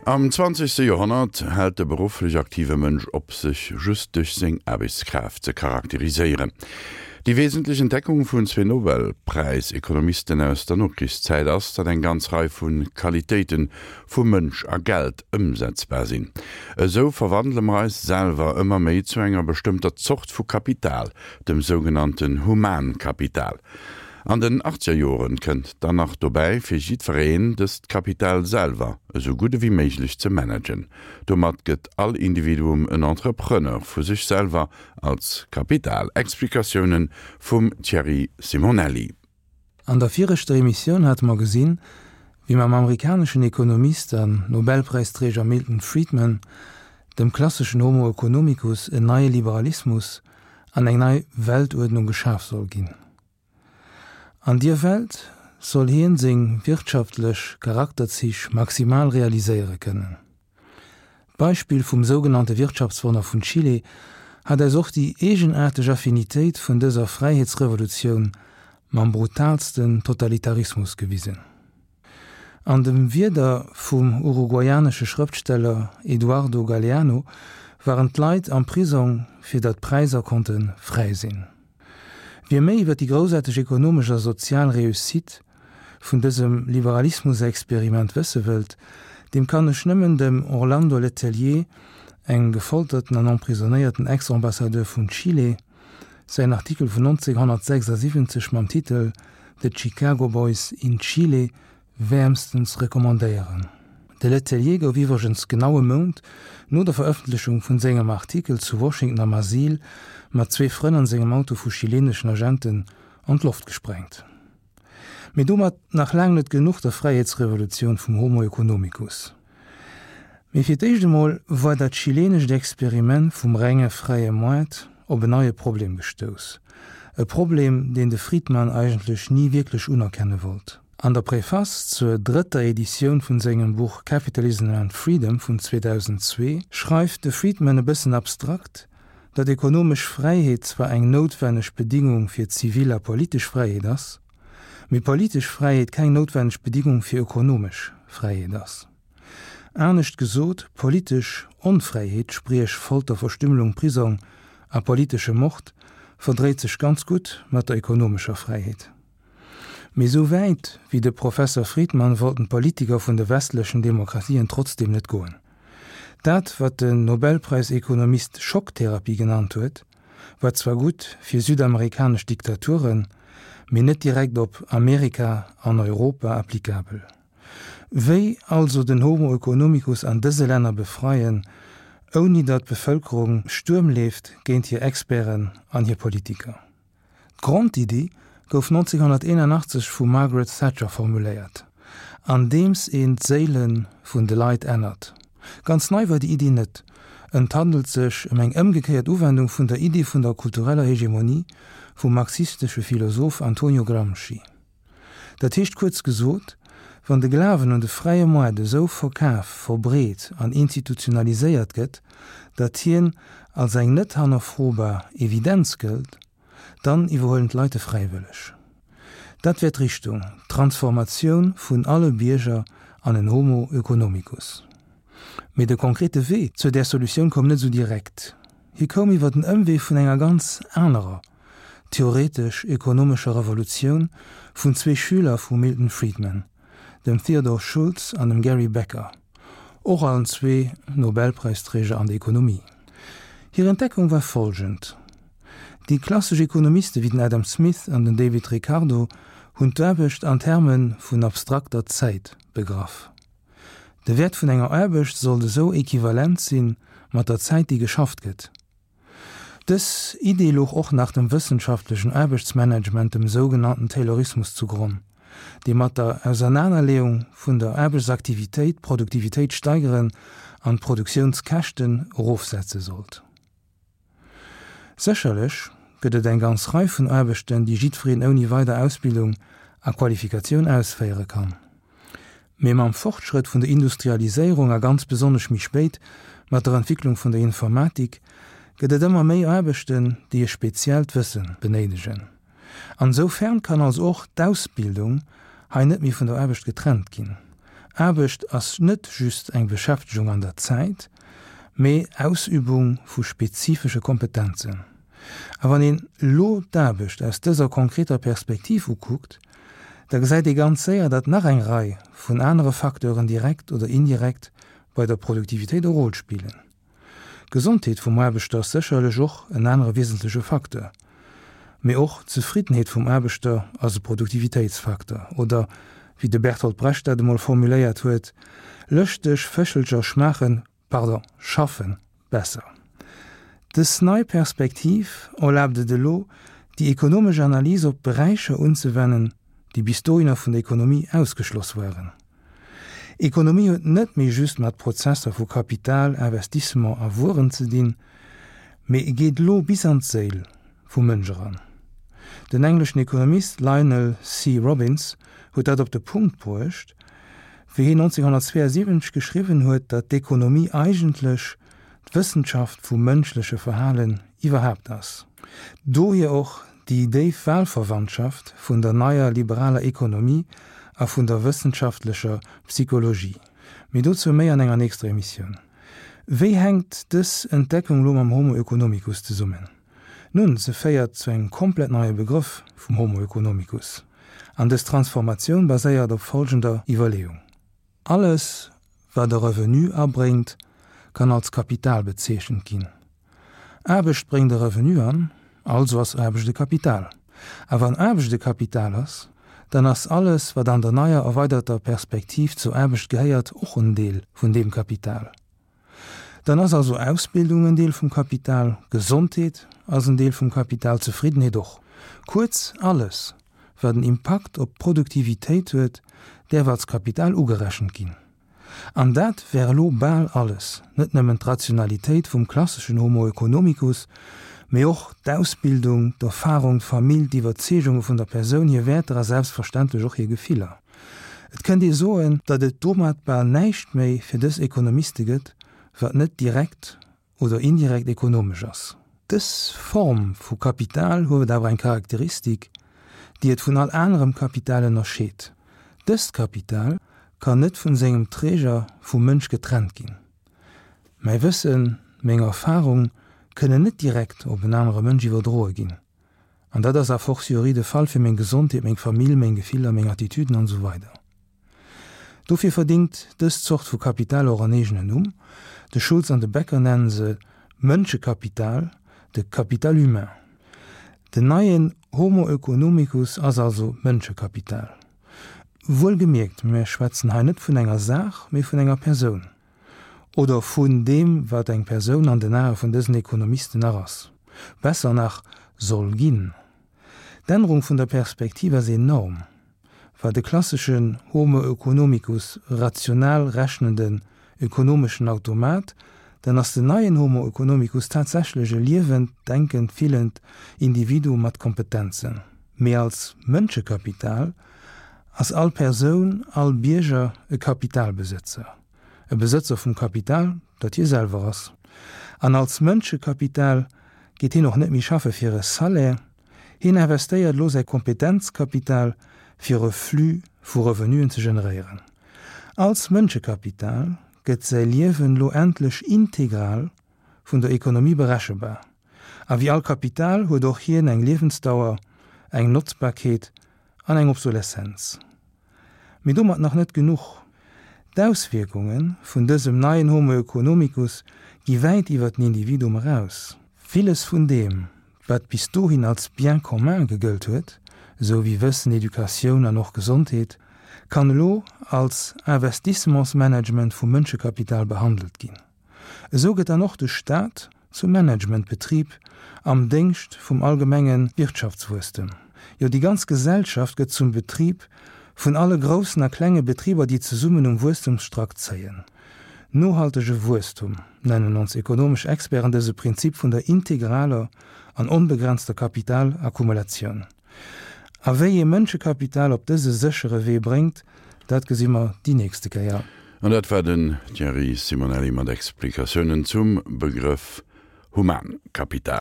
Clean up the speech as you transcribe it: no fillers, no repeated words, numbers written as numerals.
Am zwanzegste Joerhonnert hält de berufflech aktive Mënsch op, sech just duerch seng Aarbechtskraaft ze charakteriséieren. Déi wesentlech Entdeckung vun zwee Nobelpräis-Ekonomisten aus der Nokrichszäit ass, datt eng ganz Rei vu Qualitéite vu Mënsch a Geld ëmsetzbar sinn. Esou verwandele mer eis selwer ëmmer méi zu enger bestëmmter Zort vu Kapital, dem sougenannten Humankapital. An den achtzeger Joren kënnt dann nach dobäi, fir jiddwereen dëst Kapital selwer esou gutt ewéi méiglech ze managen. Domat gëtt all Individuum en Entrepreneur vu sech selwer als Kapital. Explikatiounen vum Thierry Simonelli. An der viregter Emissioun hate mer gesinn, wéi mam amerikaneschen Ekonomist an Nobelpräisträger Milton Friedman, dem klasseschen Homo economicus, en neie Liberalismus an eng nei Weltuerdnung geschaf soll ginn. An dier Welt soll hien seng wirtschaftlech Charakterzich maximal realiséiere kënnen. D'Beispill vum sougenannte Wirtschaftswonner vun Chile hat eis och déi eegenaarteg Affinitéit vun dëser Fräiheetsrevolutioun mam brutalsten Totalitarismus gewisen. An de Wierder vum uruguayanesche Schrëftsteller Eduardo Galeano waren d'Leit am Prisong, fir datt d'Präisser konnte fräi sinn. Wie méi iwwer déi groussaarteg ekonomesch a sozial Réussite vun dësem Liberalismusexperiment wësse wëllt, deem kann ech nëmmen dem Orlando Letelier, engem gefolterten an emprisonnéierten Ex-Ambassadeur vun Chile, Säin Artikel vun 1976 mam Titel The Chicago Boys in Chile wäermstens recommandéieren. De Letelier gouf iwwregens genau e Mount no der Verëffentlechung vun sengem Artikel zu Washington am Asyl mat zwee Frënn an sengem Auto vu chileneschen Agenten an d'Loft gesprengt. Mee domat nach laang net genuch der Fräiheetsrevolutioun vum Homo economicus. Mee fir d'éischt emol war dat chilenescht Experiment vum renge fräie Moart op en neie Problem gestouss. E Problem, deen de Friedman eigentlech ni wierklech unerkenne wollt. An der Préface zur drëtter Editioun vun sengem Buch Capitalism and Freedom vun 2002 schreift de Friedman e bëssen abstrakt, datt ekonomesch Fräiheet zwar eng noutwenneg Bedingung fir zivil a politesch Fräiheet ass, mee politesch Fräiheet keng noutwenneg Bedingung fir ökonomesch Fräiheet ass. Anescht gesot, politesch Onfräiheet, spriech Folter, Verstümmelung, Prisong a politesche Mord, verdréit sech ganz gutt mat der ökonomescher Fräiheet. Mee esou wäit wéi de Professer Friedman wollten d'Politiker vun de westlechen Demokratien trotzdeem net goen. Dat, wat den Nobelpräisekonomist Schocktherapie genannt huet, war zwar gutt fir südamerikanesch Diktaturen, mee net direkt op Amerika an Europa applikabel. Wéi also den Homo economicus an dëse Länner befreien, ouni datt d'Bevëlkerung Stuerm leeft géint hir Experten an hir Politiker? D'Grondiddi gouf 1981 vum Margaret Thatcher formuléiert, andeems een d'Séile vun de Leit ännert. Ganz nei war déi Iddi net, et handelt sech ëm eng ëmgekéiert Uwendung vun der Iddi vun der kultureller Hegemonie vum marxistesche Philosoph Antonio Gramsci. Dat heescht kuerz gesot, wann de Glawen un de fräie Moart esou verkaf, verbreet an institutionaliséiert gëtt, datt hien als eng net hannerfrobar Evidenz gëllt, dann iwwerhuelen d'Leit e fräiwëlleg. Dat wär d'Richtung, d'Transformatioun vun alle Bierger an en Homo oeconomicus. Mee de konkrete Wee zur där Solutioun koum net esou direkt. Hie koum iwwer den Ëmwee vun enger ganz anerer, theoretesch-ökonomescher Revolutioun vun zwee Schüler vum Milton Friedman, dem Theodore Schultz an dem Gary Becker, och allen zwee Nobelpräisträger an der Ekonomie. Hir Entdeckung war folgend, Déi klassesch Ekonomiste wéi den Adam Smith an den David Ricardo hunn d'Aarbecht an Terme vun abstrakter Zäit begraff. De Wäert vun enger Aarbecht sollt esou equivalent si mat der Zäit déi geschafft gëtt. Dës Idee louch och nach dem wëssenschaftlechen Aarbechtsmanagement, dem sougenannten Taylorismus, zu Gronn, dee mat der Ausernanerleeung vun der Aarbechtsaktivitéit d'Produktivitéit steigeren an d'Produktiounskäschten erofsetze sollt. Sécherlech gëtt et eng ganz Rei vun Aarbechten, déi jiddwereen ouni weider Ausbildung a Qualifikatioun ausféiere kann. Mee mam Fortschrëtt vun der Industrialiséierung a ganz besonnesch méi spéit mat der Entwicklung vun der Informatik gëtt et ëmmer méi Aarbechten, déi e speziellt Wësse benéidegen. An esou fern kann also och d'Ausbildung hei net méi vun der Aarbecht getrennt ginn. Aarbecht ass net just eng Beschäftegung an der Zäit, mee Ausübung vu spezifesche Kompetenzen. A wann een elo d'Aarbecht aus dëser konkreter Perspektiv ukuckt, da gesäit ee ganz séier, datt nach eng Rei vun anere Facteuren direkt oder indirekt bei der Produktivitéit e Rôle spillen. D'Gesondheet vum Aarbechter ass sécherlech och en anere wiesentleche Facteur. Mee och d'Zefriddenheet vum Aarbechter ass e Produktivitéitsfacteur. Oder, wéi de Bertolt Brecht dat emol formuléiert huet, Lëschteg Féchelcher schmaachen, pardon, schaffen besser. Dës nei Perspektiv erlaabt et elo, déi ekonomesch Analys op Beräicher unzewennen, déi bis dohinner vun der Ekonomie ausgeschloss waren. Ekonomie huet net méi just mat Prozesser vu Kapital, Investissement a Wueren ze dinn, mee geet elo bis an d'Séil vum Mënsch eran. Den engleschen Ekonomist Lionel C. Robbins huet dat op de Punkt bruecht, wéi hien 1972 geschriwwen huet, datt d'Ekonomie eigentlech d'Wëssenschaft vum mënschleche Verhalen iwwerhaapt ass. Dohier och déi déif Wahlverwandtschaft vun der neier liberaler Ekonomie a vun der wëssenschaftlecher Psychologie. Mee dozou méi an enger nächster Emissioun. Wéi hänkt dës Entdeckung lo mam Homo economicus zesummen? Nun, se féiert zu engem komplett neie Begrëff vum Homo economicus. An dës Transformatioun baséiert op folgender Iwwerleeung. Alles, wat e Revenu abréngt, kann als Kapital bezeechent ginn. Aarbecht bréngt e Revenu an, also ass Aarbecht e Kapital. A wann Aarbecht e Kapital ass, dann ass alles, wat an der neier erweiderter Perspektiv zur Aarbecht gehéiert, och en Deel vun deem Kapital. Dann ass also Ausbildung en Deel vum Kapital, Gesondheet ass en Deel vum Kapital, Zefriddenheet och. Kuerz, alles, wat en Impakt op d'Produktivitéit huet, däerf als Kapital ugerechent ginn. An dat wär elo bal alles, net nëmmen d'Rationalitéit vum klasseschen Homo economicus, mee och d'Ausbildung, d'Erfarung, d'Famill, d'Iwwerzeegunge vun der Persoun, hir Wäerter a selbstverständlech och hir Gefiller. Et kënnt ee soen, datt et domat bal näischt méi fir dës Ekonomiste gëtt, wat net direkt oder indirekt ekonomesch ass. Dës Form vu Kapital huet awer eng Charakteristik, déi et vun all anerem Kapital ënnerscheet, Dëst Kapital kann net vun sengem Träger, vum Mënsch, getrennt ginn. Mäi Wëssen, meng Erfarung kënnen net direkt op en anere Mënsch iwwerdroe ginn. An dat ass a fortiori de Fall fir meng Gesondheet, meng Famill, meng Gefiller, meng Attitüden an esou weider. Dofir verdingt dës Zort vu Kapital och en eegenen Numm. De Schulz an de Becker nennen se Mënschekapital, de Capital humain. Den neien Homo oeconomicus ass also Mënschekapital. Wuelgemierkt, mir schwätzen hei net vun enger Saach, mee vun enger Persoun. Oder vun deem, wat eng Persoun an den Ae vun dësen Ekonomisten nach ass. Besser nach, soll ginn. D'Ännerung vun der Perspektiv ass enorm. War de klasseschen Homo oeconomicus rational rechnenden ökonomeschen Automat, dann ass den neien Homo oeconomicus tatsächlech e liewend, denkend, fillend Individuum mat Kompetenzen. Mee als Mënschekapital ass all Persoun, all Bierger e Kapitalbesëtzer. E Besëtzer vum Kapital, dat hie selwer ass. An als Mënschekapital geet hien och net méi schaffe fir e Salaire, hien investéiert elo säi Kompetenzkapital fir e Flux vu Revenuen ze generéieren. Als Mënschekapital gëtt säi Liewen elo endlech integral vun der Ekonomie berechebar. A wéi all Kapital huet och hien eng Liewensdauer, eng Notzbarkeet an eng Obsoleszenz. Mee domat nach net genuch. D'Auswierkunge vun dësem neien Homo economicus gi wäit iwwer den Individuum eraus. Villes vun deem, wat bis dohin als Bien commun gegëllt huet, esou wéi Wëssen, Educatioun an och Gesondheet, kann elo als Investissementsmanagement vum Mënschekapital behandelt ginn. Esou gëtt dann och de Staat zum Managementbetrib am Déngscht vum allgemenge Wirtschaftswuesstem. Jo, déi ganz Gesellschaft gëtt zum Betrib vun alle groussen a klenge Betriber, déi zesummen um Wuesstemsstrack zéien. Nohaltege Wuesstum nennen ons ekonomesch Experten dëse Prinzip vun der integraler an onbegrenzter Kapitalakkumulatioun. A wéi ee Mënschekapital op dëse séchere Wee bréngt, dat gesi mer déi nächste Kéier. An dat war den Thierry Simonelli mat Explikatiounen zum Begrëff Humankapital.